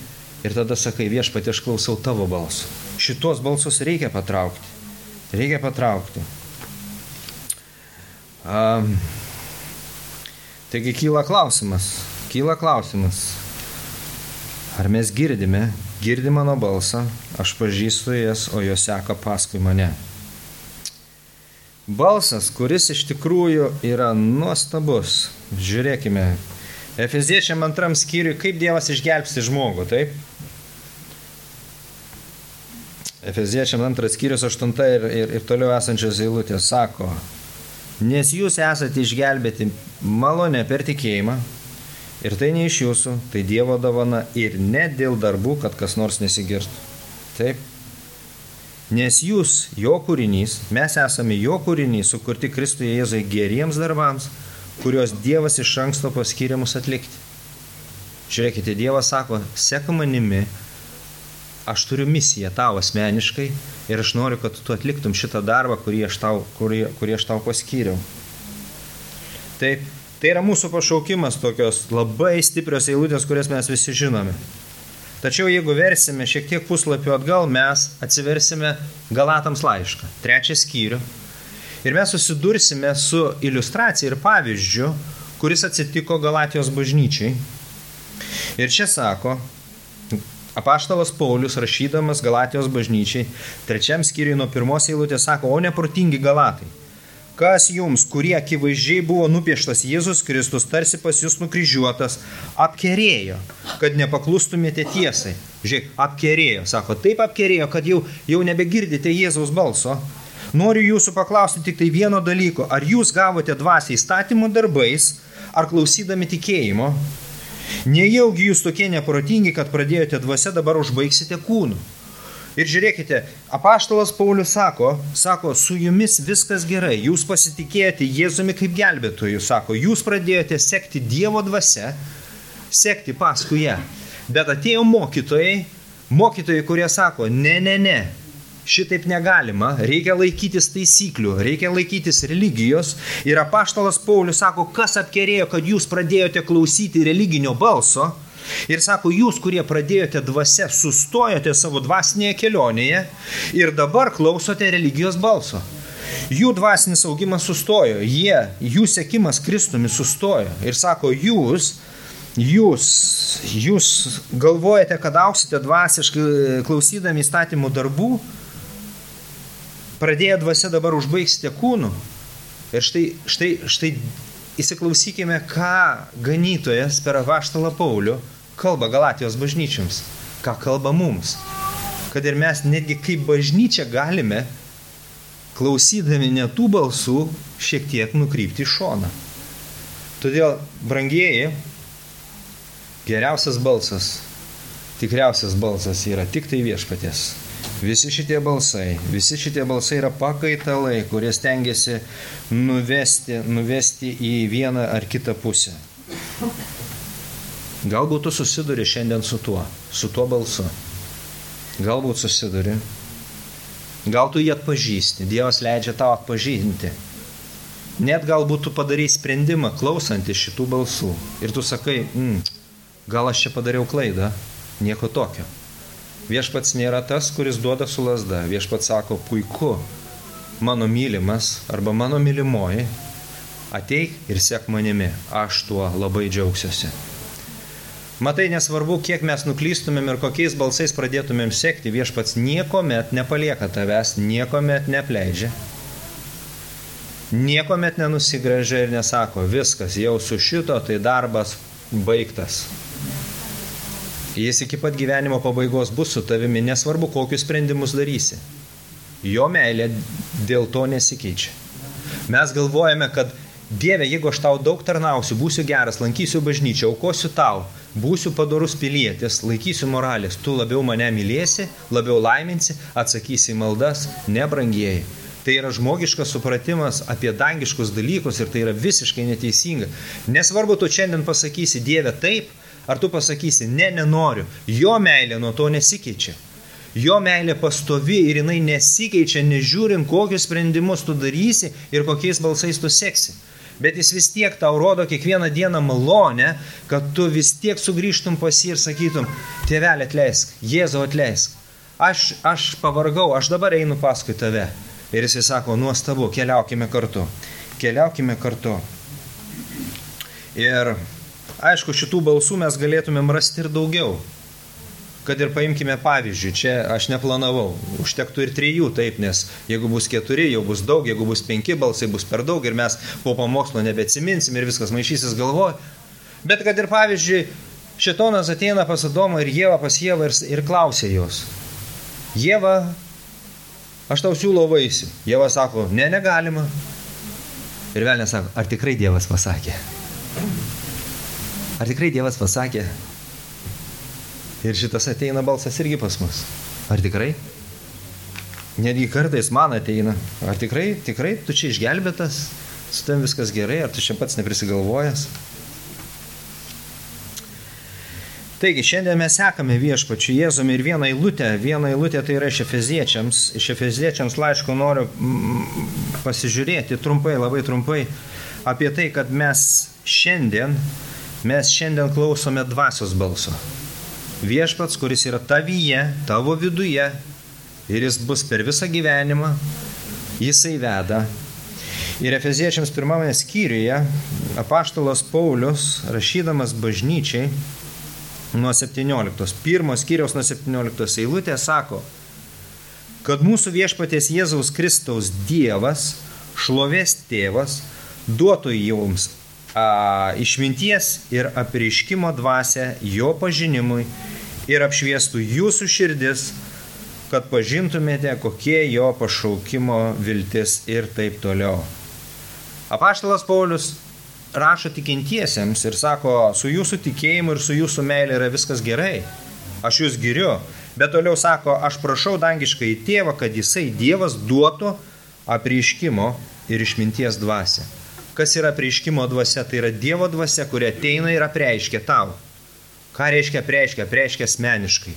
ir tada sakai, Viešpatie, aš klausau tavo balso. Šitos balsus reikia patraukti. Reikia patraukti. Taigi kyla klausimas. Ar mes girdime mano balsą, aš pažįstu jas, o jos seka paskui mane. Balsas, kuris iš tikrųjų yra nuostabus. Žiūrėkime, Efeziečiam 2 skyriui, kaip Dievas išgelbsti žmogų, taip? Efeziečiam 2 skyrius 8 ir toliau esančios eilutės sako, nes jūs esate išgelbėti malonę per tikėjimą, ir tai ne iš jūsų, tai Dievo dovana ir ne dėl darbų, kad kas nors nesigirtų. Taip? Nes jūs, jo kūrinys, mes esame jo kūrinys, sukurti Kristuje Jėzui geriems darbams, kuriuos Dievas iš anksto paskyrė mus atlikti. Žiūrėkite, Dievas sako, sek manimi, aš turiu misiją tau asmeniškai ir aš noriu, kad tu atliktum šitą darbą, kurį aš tau paskyriau. Taip, tai yra mūsų pašaukimas, tokios labai stiprios eilutės, kurias mes visi žinome. Tačiau jeigu versime šiek tiek puslapių atgal, mes atsiversime Galatams laišką, 3 skyrių. Ir mes susidursime su iliustracija ir pavyzdžiu, kuris atsitiko Galatijos bažnyčiai. Ir čia sako, apaštalas Paulius, rašydamas Galatijos bažnyčiai, 3 skyriui nuo 1 eilutės sako, o neprotingi Galatai. Kas jums, kurie akivaizdžiai buvo nupieštas Jėzus Kristus, tarsi pas jūs nukryžiuotas, apkerėjo, kad nepaklustumėte tiesai. Žiūrėk, apkerėjo, sako, taip apkerėjo, kad jau nebegirdite Jėzaus balso. Noriu jūsų paklausti tik tai vieno dalyko, ar jūs gavote dvasią įstatymų darbais, ar klausydami tikėjimo? Nejaugi jūs tokie neprotingi, kad pradėjote dvasia, dabar užbaigsite kūnu. Ir žiūrėkite, apaštalas Paulius sako, su jumis viskas gerai, jūs pasitikėjote Jėzumi kaip gelbėtoju, sako, jūs pradėjote sekti Dievo dvasia, sekti paskui ją. Bet atėjo mokytojai, kurie sako, ne, šitaip negalima, reikia laikytis taisyklių, reikia laikytis religijos. Ir apaštalas Paulius sako, kas apkerėjo, kad jūs pradėjote klausyti religinio balso. Ir sako, jūs, kurie pradėjote dvasia, sustojote savo dvasinėje kelionėje ir dabar klausote religijos balso. Jų dvasinis augimas sustojo, jų sekimas Kristumi sustojo. Ir sako, jūs galvojate, kad auksite dvasiškai klausydami įstatymų darbų, pradėję dvasia dabar užbaigsite kūnų. Ir štai įsiklausykime, ką ganytojas per apaštalą Paulių kalba Galatijos bažnyčiams, ką kalba mums. Kad ir mes netgi kaip bažnyčia galime, klausydami ne tų balsų, šiek tiek nukrypti į šoną. Todėl, brangieji, geriausias balsas, tikriausias balsas yra tik tai Viešpaties. Visi šitie balsai yra pakaitalai, kurie stengiasi nuvesti į vieną ar kitą pusę. Galbūt tu susiduri šiandien su tuo balsu. Galbūt susiduri. Gal tu jį atpažįsti. Dievas leidžia tau atpažinti. Net galbūt tu padarai sprendimą klausantis šitų balsų. Ir tu sakai, gal aš čia padariau klaidą. Nieko tokio. Viešpats nėra tas, kuris duoda su lazda. Viešpats sako, puiku, mano mylimas arba mano mylimoji, ateik ir sek manimi. Aš tuo labai džiaugsiuosi. Matai, nesvarbu, kiek mes nuklystumėm ir kokiais balsais pradėtumėm sekti, Viešpats niekuomet nepalieka tavęs, niekuomet nepleidžia. Niekuomet nenusigręžia ir nesako, viskas, jau su šito, tai darbas baigtas. Jis iki pat gyvenimo pabaigos bus su tavimi, nesvarbu, kokius sprendimus darysi. Jo meilė dėl to nesikeičia. Mes galvojame, kad Dieve, jeigu aš tau daug tarnausiu, būsiu geras, lankysiu bažnyčią, aukosiu tau, būsiu padorus pilietis, laikysiu moralės, tu labiau mane mylėsi, labiau laiminsi, atsakysi į maldas, nebrangieji. Tai yra žmogiškas supratimas apie dangiškus dalykus ir tai yra visiškai neteisinga. Nesvarbu, tu šiandien pasakysi Dieve taip, ar tu pasakysi nenoriu, jo meilė nuo to nesikeičia. Jo meilė pastovi ir jinai nesikeičia, nežiūrint, kokius sprendimus tu darysi ir kokiais balsais tu seksi. Bet jis vis tiek tau rodo kiekvieną dieną malonę, kad tu vis tiek sugrįžtum pas jį ir sakytum, tėvelė atleisk, Jėzau atleisk. Aš pavargau, aš dabar einu paskui tave. Ir jis sako, nuostabu, keliaukime kartu. Keliaukime kartu. Ir aišku, šitų balsų mes galėtumėm rasti ir daugiau. Kad ir paimkime pavyzdžių, čia aš neplanavau, užtektų ir 3, taip, nes jeigu bus 4, jau bus daug, jeigu bus 5 balsai, bus per daug ir mes po pamokslo nebeatsiminsim ir viskas maišysis galvoj. Bet kad ir pavyzdžiui, šėtonas ateina pas Adomą ir Ievą pas Ievą ir klausia jos. Ieva, aš tau siūlau vaisių. Ieva sako, ne, negalima. Ir velnias sako, ar tikrai Dievas pasakė? Ar tikrai Dievas pasakė? Ir šitas ateina balsas irgi pas mus. Ar tikrai? Netgi kartais man ateina. Ar tikrai, tu čia išgelbėtas? Su tam viskas gerai? Ar tu čia pats neprisigalvojęs? Taigi, šiandien mes sekame viešpačiu Jėzumi ir vieną eilutę tai yra iš Efeziečiams laiško noriu pasižiūrėti trumpai, labai trumpai apie tai, kad mes šiandien klausome dvasios balso. Viešpats, kuris yra tavyje, tavo viduje ir jis bus per visą gyvenimą, jisai veda. Ir Efeziečiams 1 skyriuje apaštalas Paulius, rašydamas bažnyčiai, nuo 1 skyriaus nuo 17 eilutės sako, kad mūsų viešpaties Jėzaus Kristaus Dievas, šlovės tėvas, duotų jums išminties ir apreiškimo dvasią jo pažinimui ir apšviestų jūsų širdis, kad pažintumėte, kokie jo pašaukimo viltis ir taip toliau. Apaštalas Paulius rašo tikintiesiems ir sako, su jūsų tikėjimu ir su jūsų meilė yra viskas gerai, aš jūs giriu, bet toliau sako, aš prašau dangiškai tėvą, kad jisai Dievas duotų apreiškimo ir išminties dvasią. Kas yra apreiškimo dvasia? Tai yra Dievo dvasia, kuri ateina ir apreiškia tau. Ką reiškia apreiškia? Apreiškia asmeniškai.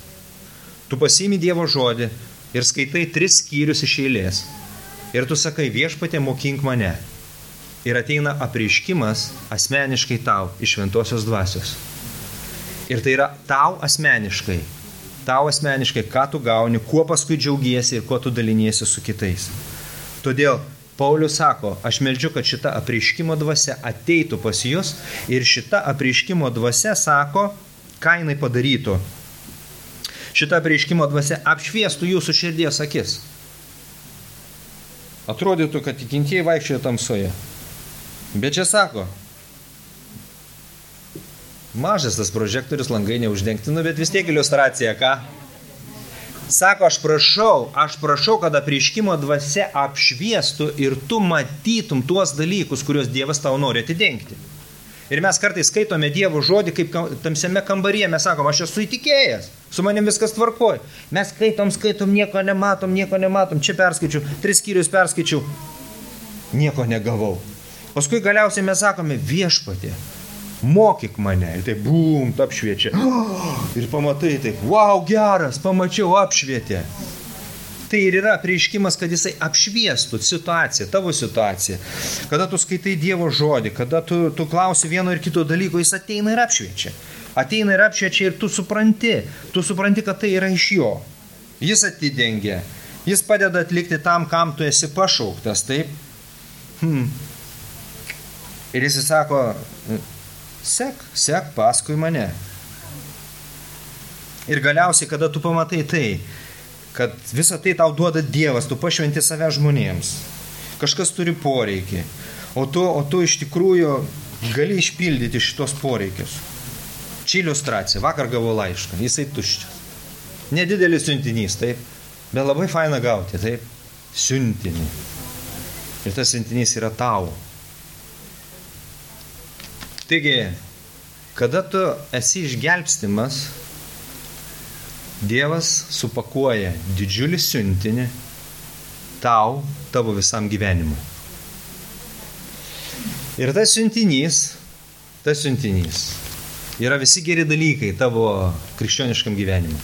Tu pasiimi Dievo žodį ir skaitai 3 skyrius iš eilės. Ir tu sakai, viešpatie, mokink mane. Ir ateina apreiškimas asmeniškai tau iš šventosios dvasios. Ir tai yra tau asmeniškai, ką tu gauni, kuo paskui džiaugiesi ir kuo tu daliniesi su kitais. Todėl Paulius sako, aš meldžiu, kad šita apreiškimo dvasia ateitų pas jūs ir šita apreiškimo dvasia sako, ką jinai padarytų. Šita apreiškimo dvasia apšviestų jūsų širdies akis. Atrodytų, kad tikintieji vaikščioja tamsoje. Bet čia sako, mažas tas prožektorius, langai neuždengti, bet vis tiek iliustracija, ką? Sako, aš prašau, kad apreiškimo dvasia apšviestų ir tu matytum tuos dalykus, kuriuos Dievas tau nori atidengti. Ir mes kartais skaitome Dievo žodį, kaip tamsiame kambaryje, mes sakom, aš esu įtikėjęs, su manim viskas tvarkoj. Mes skaitom, nieko nematom, čia perskaičiau, 3 skyrius perskaičiau, nieko negavau. Paskui galiausiai mes sakome, viešpatie, mokyk mane. Ir taip, bum, apšviečia. Ir pamatai taip, wow, geras, pamačiau, apšvietė. Tai ir yra apreiškimas, kad jisai apšviestų situaciją, tavo situaciją. Kada tu skaitai Dievo žodį, kada tu klausi vieno ir kito dalyko, jis ateina ir apšviečia. Ateina ir apšviečia ir tu supranti, kad tai yra iš jo. Jis atidengia, jis padeda atlikti tam, kam tu esi pašauktas, taip? Ir jis sako, sek paskui mane. Ir galiausiai, kada tu pamatai tai, kad visą tai tau duoda Dievas, tu pašventi save žmonėms. Kažkas turi poreikį, o tu iš tikrųjų gali išpildyti šitos poreikius. Čia iliustracija, vakar gavau laišką, jisai tuščias. Nedidelis siuntinys, taip, bet labai faina gauti, taip, siuntinį. Ir tas siuntinys yra tau. Taigi, kada tu esi išgelbstimas, Dievas supakuoja didžiulį siuntinį tavo visam gyvenimui. Ir tas siuntinys yra visi geri dalykai tavo krikščioniškam gyvenimui.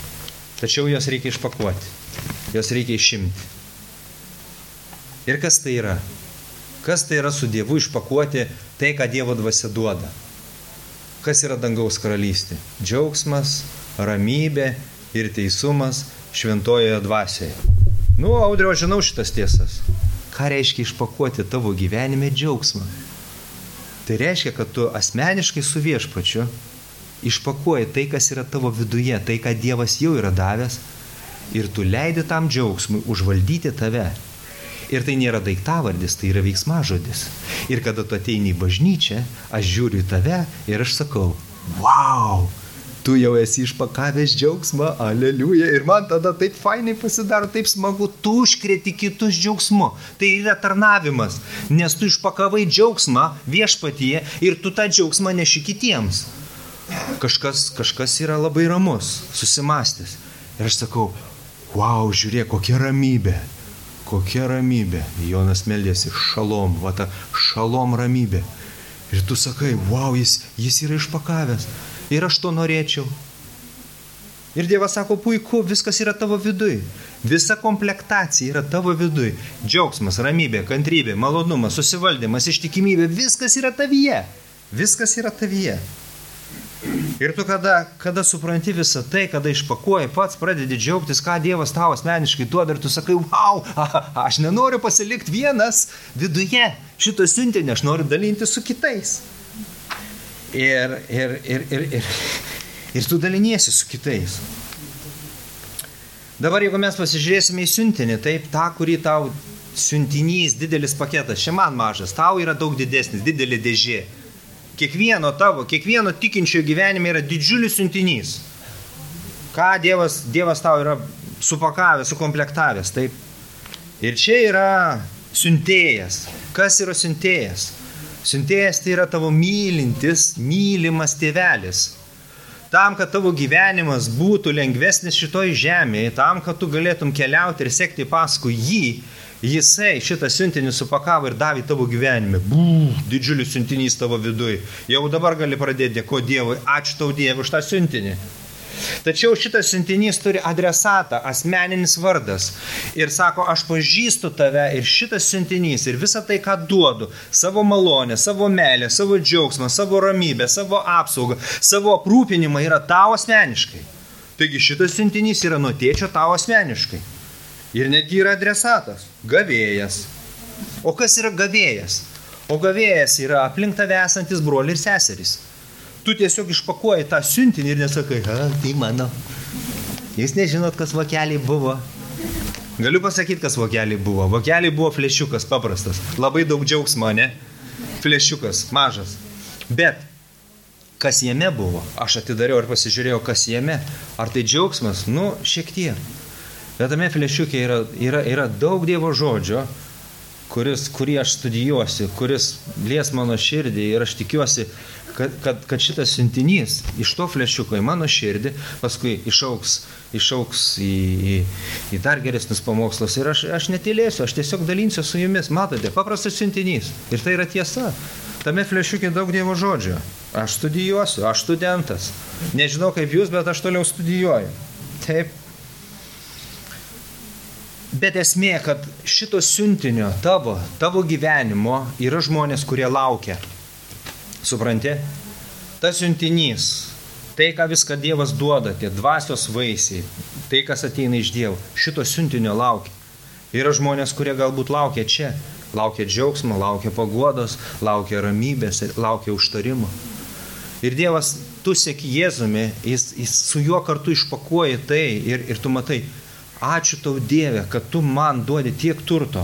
Tačiau jos reikia išpakuoti, jos reikia išimti. Ir kas tai yra? Kas tai yra su Dievu išpakuoti Tai, ką Dievo dvasia duoda. Kas yra dangaus karalystė? Džiaugsmas, ramybė ir teisumas šventojoje dvasioje. Audriau, žinau šitas tiesas. Ką reiškia išpakuoti tavo gyvenime džiaugsmą? Tai reiškia, kad tu asmeniškai su Viešpačiu išpakuoji tai, kas yra tavo viduje, tai, ką Dievas jau yra davęs, ir tu leidi tam džiaugsmui užvaldyti tave. Ir tai nėra daiktavardis, tai yra veiksmažodis. Ir kada tu ateini į bažnyčią, aš žiūriu į tave ir aš sakau, wow, tu jau esi išpakavęs džiaugsmą, aleliuja. Ir man tada taip fainai pasidaro, taip smagu, tu užkrėti kitus džiaugsmu. Tai yra tarnavimas, nes tu išpakavai džiaugsmą Viešpatyje ir tu tą džiaugsmą neši kitiems. Kažkas yra labai ramus, susimastęs. Ir aš sakau, wow, žiūrėk, kokia ramybė. Kokia ramybė. Jonas meldėsi, šalom, va ta šalom ramybė. Ir tu sakai, wow, jis yra išpakavęs. Ir aš to norėčiau. Ir Dievas sako, puiku, viskas yra tavo viduj. Visa komplektacija yra tavo viduj. Džiaugsmas, ramybė, kantrybė, malonumas, susivaldymas, ištikimybė, viskas yra tavyje. Viskas yra tavyje. Ir tu kada supranti visą tai, kada išpakuoji, pats pradedi džiaugtis, ką Dievas tau asmeniškai duoda ir tu sakai, wow, aš nenoriu pasilikti vienas viduje šito siuntinio, aš noriu dalinti su kitais. Ir tu daliniesi su kitais. Dabar jeigu mes pasižiūrėsime į siuntinį, taip, tą, kurį tau siuntinys, didelis paketas, čia man mažas, tau yra daug didesnis, didelė dėžė. Kiekvieno tikinčio gyvenime yra didžiulis siuntinys. Ką Dievas tau yra supakavęs, sukomplektavęs, taip. Ir čia yra siuntėjas. Kas yra siuntėjas? Siuntėjas tai yra tavo mylimas tėvelis. Tam, kad tavo gyvenimas būtų lengvesnis šitoj žemėje, tam, kad tu galėtum keliauti ir sekti paskui jį, Jisai šitą siuntinį supakavo ir davė tavo gyvenime. Didžiulis siuntinys tavo viduj. Jau dabar gali pradėti dėkoti Dievui. Ačiū tau Dievui už tą siuntinį. Tačiau šitas siuntinys turi adresatą, asmeninis vardas. Ir sako, aš pažįstu tave ir šitas siuntinys ir visą tai, ką duodu, savo malonę, savo meilę, savo džiaugsmą, savo ramybę, savo apsaugą, savo aprūpinimą yra tau asmeniškai. Taigi šitas siuntinys yra nuo tėčio tau asmeniškai. Ir netgi yra adresatas – gavėjas. O kas yra gavėjas? O gavėjas yra aplink tave esantis broliai ir seserys. Tu tiesiog išpakuoji tą siuntinį ir nesakai, tai mano. Jūs nežinot, kas vokeliai buvo. Galiu pasakyti, kas vokeliai buvo. Vokeliai buvo flešiukas paprastas. Labai daug džiaugsmo, ne? Flešiukas, mažas. Bet kas jame buvo? Aš atidariau ir pasižiūrėjau, kas jame. Ar tai džiaugsmas? Šiek tiek. Bet tame flešiukė yra daug Dievo žodžio, kurį aš studijuosiu, kuris lies mano širdį ir aš tikiuosi, kad šitas siuntinys iš to flešiuko į mano širdį paskui išauks į dar geresnius pamokslus ir aš netylėsiu, aš tiesiog dalinsiu su jumis. Matote, paprastas siuntinys ir tai yra tiesa. Tame flešiukė daug Dievo žodžio. Aš studijuosiu, aš studentas. Nežinau kaip jūs, bet aš toliau studijuoju. Taip. Bet esmė, kad šito siuntinio tavo gyvenimo yra žmonės, kurie laukia. Supranti? Tas siuntinys, tai, ką viską Dievas duoda, tie dvasios vaisiai, tai, kas ateina iš Dievo, šito siuntinio laukia. Yra žmonės, kurie galbūt laukia čia. Laukia džiaugsmo, laukia paguodos, laukia ramybės, laukia užtarimo. Ir Dievas, tu seki Jėzumi, jis su juo kartu išpakuoji tai ir tu matai, ačiū tau Dieve, kad tu man duodi tiek turto.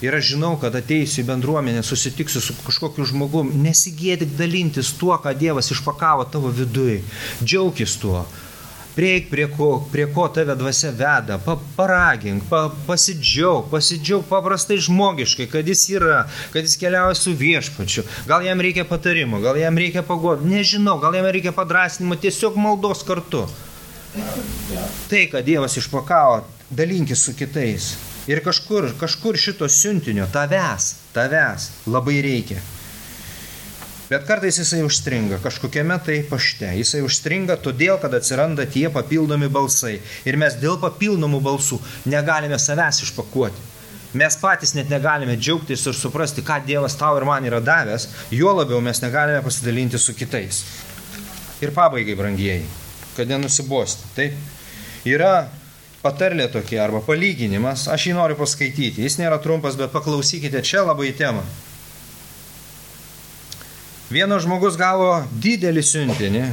Ir aš žinau, kad ateisiu į bendruomenę, susitiksiu su kažkokiu žmogum, nesigėdik dalintis tuo, ką Dievas išpakavo tavo viduje. Džiaukis tuo. Prieik prie ko tave dvasia veda, paragink, pasidžiauk paprastai žmogiškai, kad jis yra, kad jis keliauja su Viešpačiu. Gal jam reikia patarimo, gal jam reikia paguodos, nežinau, gal jam reikia padrasnimo, tiesiog maldos kartu. Tai, kad Dievas išpakavo, dalinkis su kitais. Ir kažkur šito siuntinio tavęs labai reikia. Bet kartais jisai užstringa, kažkokiame tai pašte. Jisai užstringa todėl, kad atsiranda tie papildomi balsai. Ir mes dėl papildomų balsų negalime savęs išpakuoti. Mes patys net negalime džiaugtis ir suprasti, ką Dievas tau ir man yra davęs, juo labiau mes negalime pasidalinti su kitais. Ir pabaigai, brangieji, kad nenusibosti. Taip, yra patarlė tokia arba palyginimas, aš jį noriu paskaityti. Jis nėra trumpas, bet paklausykite, čia labai tema. Vienas žmogus gavo didelį siuntinį,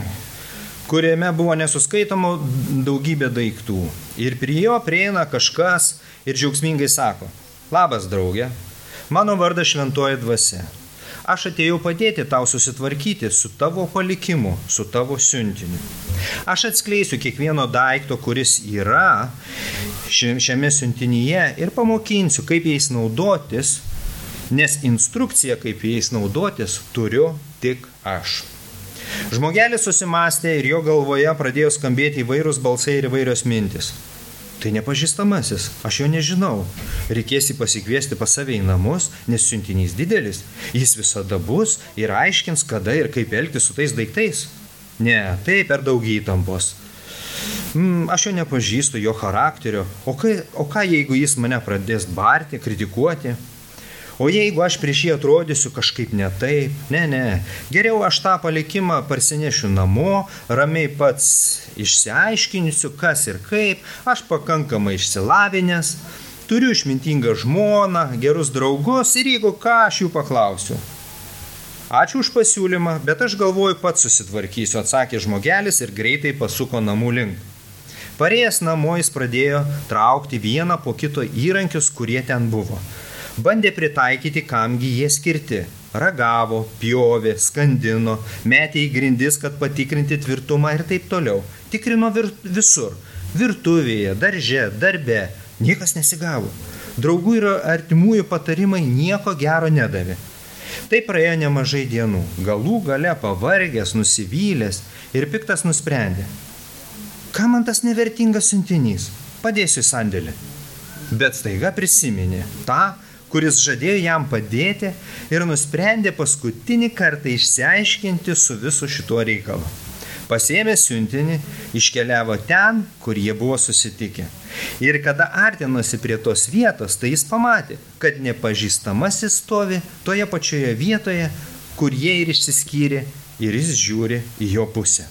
kuriame buvo nesuskaitoma daugybė daiktų. Ir prie jo prieina kažkas ir džiaugsmingai sako: labas, draugė, mano vardas Šventoji Dvasia. Aš atėjau padėti tau susitvarkyti su tavo palikimu, su tavo siuntiniu. Aš atskleisiu kiekvieno daikto, kuris yra šiame siuntinyje ir pamokinsiu, kaip jais naudotis, nes instrukciją, kaip jais naudotis, turiu tik aš. Žmogelis susimastė ir jo galvoje pradėjo skambėti įvairūs balsai ir įvairios mintis. Tai nepažįstamasis, aš jo nežinau. Reikės jį pasikviesti pas save į namus, nes siuntinys didelis. Jis visada bus ir aiškins, kada ir kaip elgtis su tais daiktais. Ne, tai per daug įtampos. Aš jo nepažįstu, jo charakterio. O ką jeigu jis mane pradės barti, kritikuoti? O jeigu aš prieš jį atrodysiu kažkaip ne taip? Ne. Geriau aš tą palikimą parsinešiu namo, ramiai pats išsiaiškinsiu, kas ir kaip, aš pakankamai išsilavinęs, turiu išmintingą žmoną, gerus draugus ir jeigu ką, aš jų paklausiu. Ačiū už pasiūlymą, bet aš galvoju pats susitvarkysiu, atsakė žmogelis ir greitai pasuko namų link. Parėjęs namo jis pradėjo traukti vieną po kito įrankius, kurie ten buvo. Bandė pritaikyti, kamgi jie skirti. Ragavo, pjovė, skandino, metė į grindis, kad patikrinti tvirtumą ir taip toliau. Tikrino visur. Virtuvėje, darže, darbe. Niekas nesigavo. Draugų ir artimųjų patarimai nieko gero nedavė. Tai praėjo nemažai dienų. Galų gale pavargęs, nusivylęs ir piktas nusprendė: ką man tas nevertingas siuntinys? Padėsiu į sandėlį. Bet staiga prisiminė tą, kuris žadėjo jam padėti ir nusprendė paskutinį kartą išsiaiškinti su visu šituo reikalu. Pasiėmė siuntinį, iškeliavo ten, kur jie buvo susitikę. Ir kada artinosi prie tos vietos, tai jis pamatė, kad nepažįstamasis stovi toje pačioje vietoje, kur jie ir išsiskyrė, ir jis žiūri į jo pusę.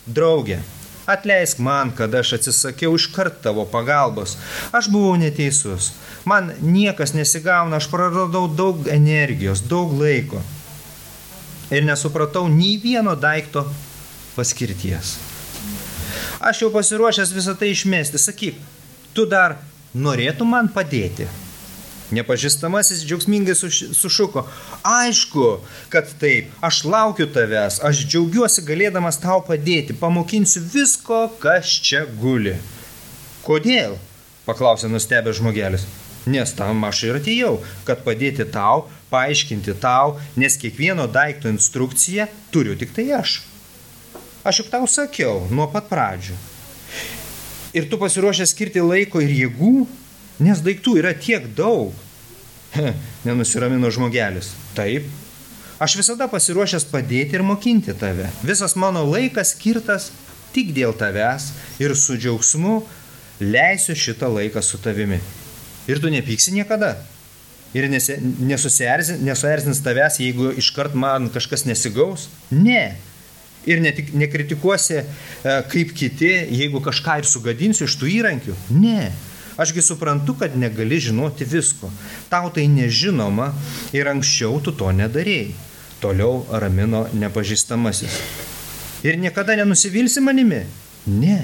Draugė, atleisk man, kad aš atsisakiau iškart tavo pagalbos. Aš buvau neteisus. Man niekas nesigauna, aš praradau daug energijos, daug laiko. Ir nesupratau nei vieno daikto paskirties. Aš jau pasiruošęs visą tai išmesti. Sakyk, tu dar norėtum man padėti? Nepažįstamasis džiaugsmingai sušuko: aišku, kad taip, aš laukiu tavęs, aš džiaugiuosi galėdamas tau padėti, pamokinsiu visko, kas čia guli. Kodėl? Paklausė nustebęs žmogelis. Nes tam aš ir atėjau, kad padėti tau, paaiškinti tau, nes kiekvieno daikto instrukciją turiu tik tai aš. Aš juk tau sakiau nuo pat pradžių. Ir tu pasiruošęs skirti laiko ir jėgų, nes daiktų yra tiek daug. Nenusiramino žmogelis. Taip, aš visada pasiruošęs padėti ir mokinti tave. Visas mano laikas skirtas tik dėl tavęs ir su džiaugsmu leisiu šitą laiką su tavimi. Ir tu nepyksi niekada. Ir nesuerzins tavęs, jeigu iškart man kažkas nesigaus. Ne. Ir nekritikuosi kaip kiti, jeigu kažką ir sugadinsiu iš tų įrankių. Ne. Ašgi suprantu, kad negali žinoti visko. Tau tai nežinoma ir anksčiau tu to nedarėjai. Toliau ramino nepažįstamasis. Ir niekada nenusivilsi manimi? Ne.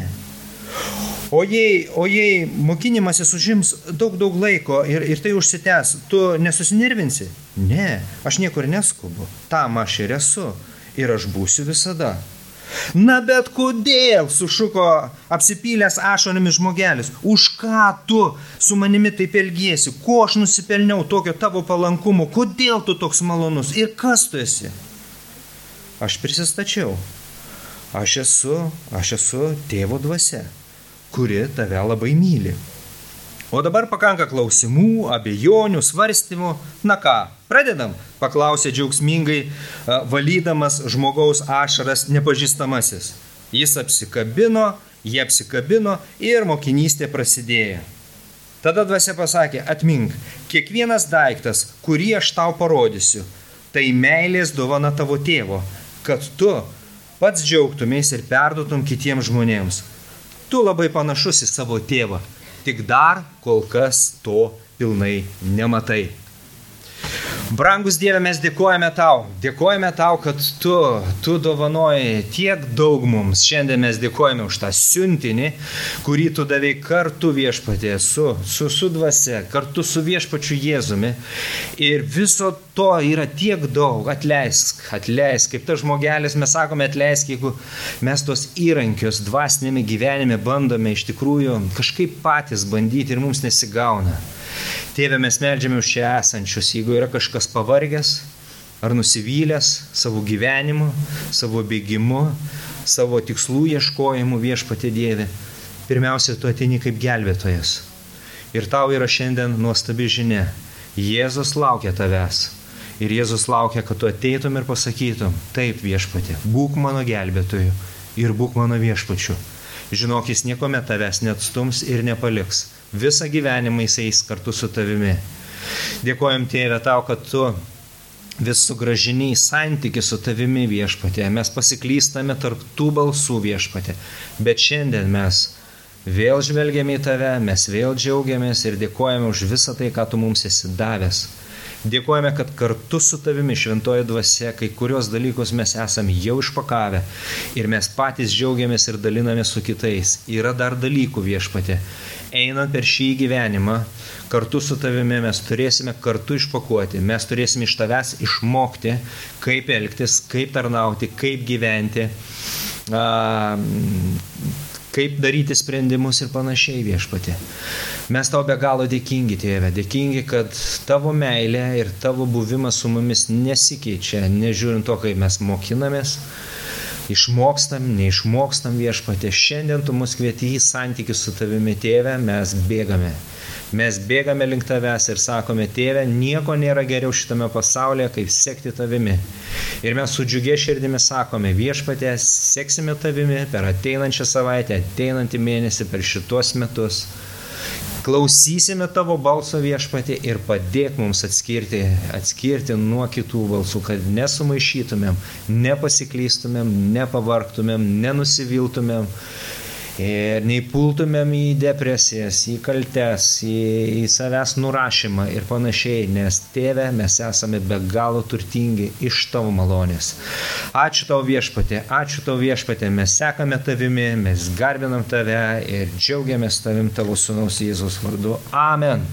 O jei mokinimasis užims daug laiko ir tai užsitęs, tu nesusinervinsi? Ne, aš niekur neskubu. Tam aš ir esu. Ir aš būsiu visada. Na bet kodėl, sušuko apsipylęs ašaromis žmogelis, už ką tu su manimi taip elgiesi, ko aš nusipelniau tokio tavo palankumo, kodėl tu toks malonus ir kas tu esi? Aš prisistačiau, aš esu Tėvo dvasia, kuri tave labai myli. O dabar pakanka klausimų, abejonių, svarstymų. Na ką, pradedam? Paklausė džiaugsmingai, valydamas žmogaus ašaras nepažįstamasis. Jie apsikabino ir mokinystė prasidėjo. Tada dvasia pasakė, atmink, kiekvienas daiktas, kurį aš tau parodysiu, tai meilės dovana tavo tėvo, kad tu pats džiaugtumės ir perduotum kitiems žmonėms. Tu labai panašus į savo tėvą, tik dar kol kas to pilnai nematai. Brangus Dieve, mes dėkojame tau, kad tu dovanoji tiek daug mums. Šiandien mes dėkojame už tą siuntinį, kurį tu davei kartu Viešpatie, su dvasia, kartu su Viešpačiu Jėzumi. Ir viso to yra tiek daug. Atleisk, kaip tas žmogelis, mes sakome atleisk, jeigu mes tos įrankius dvasinėme gyvenime bandome iš tikrųjų kažkaip patys bandyti ir mums nesigauna. Tėve, mes meldžiame už čia esančius, jeigu yra kažkas pavargęs ar nusivylęs savo gyvenimu, savo bėgimu, savo tikslų ieškojimu, Viešpatie Dieve, pirmiausia, tu ateini kaip gelbėtojas. Ir tau yra šiandien nuostabi žinia. Jėzus laukia tavęs. Ir Jėzus laukia, kad tu ateitum ir pasakytum, taip Viešpatie, būk mano gelbėtoju ir būk mano Viešpačiu. Žinok, jis niekuomet tavęs neatstums ir nepaliks. Visą gyvenimą jis eis kartu su tavimi. Dėkojam Tėve tau, kad tu vis sugrąžini į santykį su tavimi, Viešpatie. Mes pasiklystame tarp tų balsų, Viešpatie. Bet šiandien mes vėl žvelgiame į tave, mes vėl džiaugiamės ir dėkojame už visą tai, ką tu mums esi davęs. Dėkojame, kad kartu su tavimi šventoji dvasia kai kurios dalykus mes esame jau išpakavę ir mes patys džiaugiamės ir dalinamės su kitais. Yra dar dalykų, Viešpatie. Einant per šį gyvenimą, kartu su tavimi mes turėsime kartu išpakuoti, mes turėsime iš tavęs išmokti, kaip elgtis, kaip tarnauti, kaip gyventi, kaip daryti sprendimus ir panašiai, Viešpatie. Mes tau be galo dėkingi, Tėve, dėkingi, kad tavo meilė ir tavo buvimas su mumis nesikeičia, nežiūrint to, kaip mes mokinamės, išmokstam, neišmokstam, Viešpatie. Šiandien tu mus kvieti į santykių su tavimi, Tėve, mes bėgame. Mes bėgame link tavęs ir sakome, Tėve, nieko nėra geriau šitame pasaulyje, kaip sekti tavimi. Ir mes su džiugia širdimi sakome, Viešpatie, seksime tavimi per ateinančią savaitę, ateinantį mėnesį, per šitos metus. Klausysime tavo balso, Viešpatie, ir padėk mums atskirti nuo kitų balsų, kad nesumaišytumėm, nepasiklystumėm, nepavargtumėm, nenusiviltumėm ir neįpultumėm į depresijas, į kaltes, į savęs nurašymą ir panašiai, nes Tėve, mes esame be galo turtingi iš tavo malonės. Ačiū tau, Viešpatie, mes sekame tavimi, mes garbinam tave ir džiaugiamės tavim tavo sūnaus Jėzaus vardu. Amen.